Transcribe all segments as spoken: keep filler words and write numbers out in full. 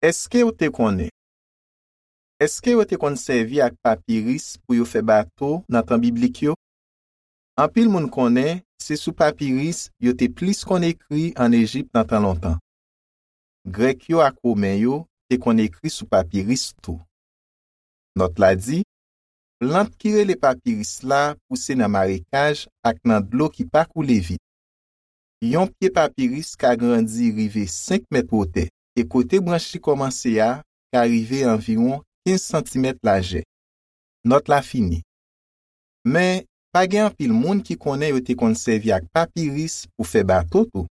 Èske w te konnen? Èske yo te konn sèvi ak papiris pou yo fè bato nan tan biblik yo? Anpil moun konnen se sou papiris yo te plis konn ekri ann Ejip nan tan lontan. Grèk yo ak Women yo te konn ekri sou papiris tou. Nòt la di, plant ki rele papiris la pouse nan marekaj ak nan dlo ki pa koule vit. Yon pye papiris ka grandi rive senk mèt wotè, e kote branch li kòmanse a ka rive anviwon kenz santimèt lajè. Nòt la fini. Men, pa gen anpil moun ki konnen yo te konn sèvi ak papiris pou fè bato tou.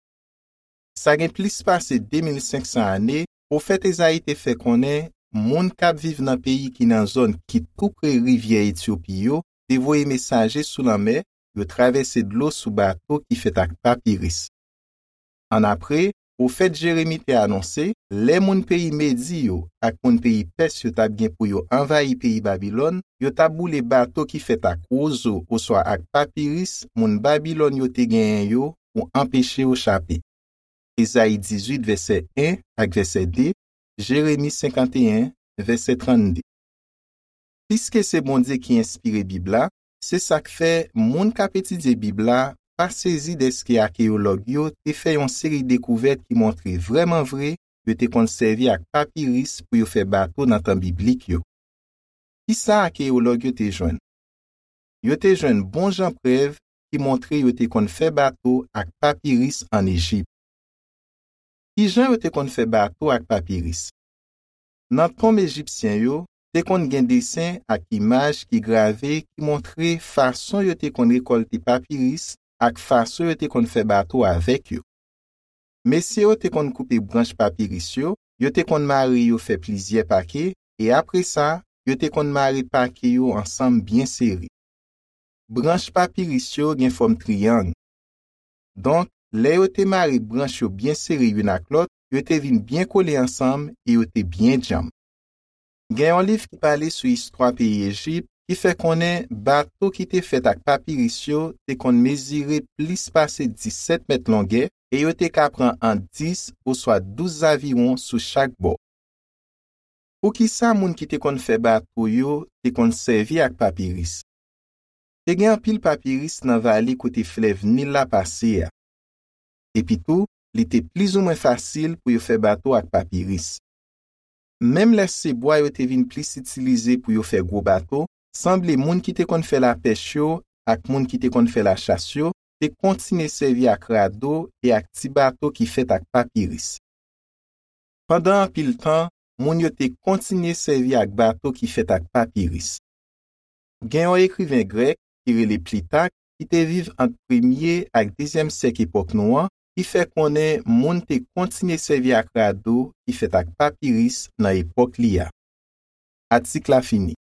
Sa gen plis pase de mil senk san ane, pwofèt Ezayi te fè konnen moun k ap viv nan peyi ki nan zòn ki tou pre rivyè Etyopi yo te voye mesaje sou lanmè, yo travèse dlo sou bato ki fèt ak papiris. Annapre, pwofèt Jeremi te anonse, lè moun peyi Medi yo ak moun peyi Pès yo t ap gen pou yo anvayi peyi Babilòn, yo t ap boule bato ki fèt ak wozo oswa ak papiris moun Babilòn yo te genyen yo pou anpeche yo chape. Ezayi dizuit, vèsè en ak vèsè de, Jeremi senkanteyen, vèsè trannde. Piske se Bondye ki enspire Bib la, se sa k fè moun k ap etidye Bib la pa sezi dèske akeyològ yo te fè yon seri dekouvèt ki montre vrèman vre yo te konn sèvi ak papiris pou yo fè bato nan tan biblik yo. Ki sa akeyològ yo te jwenn? Yo te jwenn bon jan prèv ki montre yo te konn fè bato ak papiris ann Ejip. Ki jan yo te konn fè bato ak papiris? Nan tonm ejipsyen yo, te konn gen desen ak imaj ki grave ki montre fason yo te konn rekòlte papiris ak fason yo te konn fè bato avèk yo. Mesye yo te konn koupe branch papiris yo, yo te konn mare yo fè plizyè pake, e apre sa, yo te konn mare pake yo ansanm byen sere. Branch papiris yo gen fòm triyang. Donk, lè yo te mare branch yo byen sere youn ak lòt, yo te vin byen kole ansanm e yo te byen djanm. Gen yon liv ki pale sou istwa peyi Ejip ki fè konnen bato ki te fèt ak papiris yo te konn mezire plis pase disèt mèt longè e yo te ka pran ant dis oswa douz zaviwon sou chak bò. Poukisa moun ki te konn fè bato yo te konn sèvi ak papiris? Te gen anpil papiris nan vale kote flèv Nil la pase a. Epitou, li te plizoumwen fasil pou yo fè bato ak papiris. Menm lè se bwa yo te vin plis itilize pou yo fè gwo bato, sanble moun ki te konn fè lapèch yo ak moun ki te konn fè lachas yo te kontinye sèvi ak rado e ak ti bato ki fèt ak papiris. Pandan anpil tan, moun yo te kontinye sèvi ak bato ki fèt ak papiris. Gen yon ekriven grèk ki rele Plitak ki te viv ant premye ak dezyèm syèk epòk nou an, ki fè konnen moun te kontinye sèvi ak rado ki fèt ak papiris nan epòk li a. Atik la fini.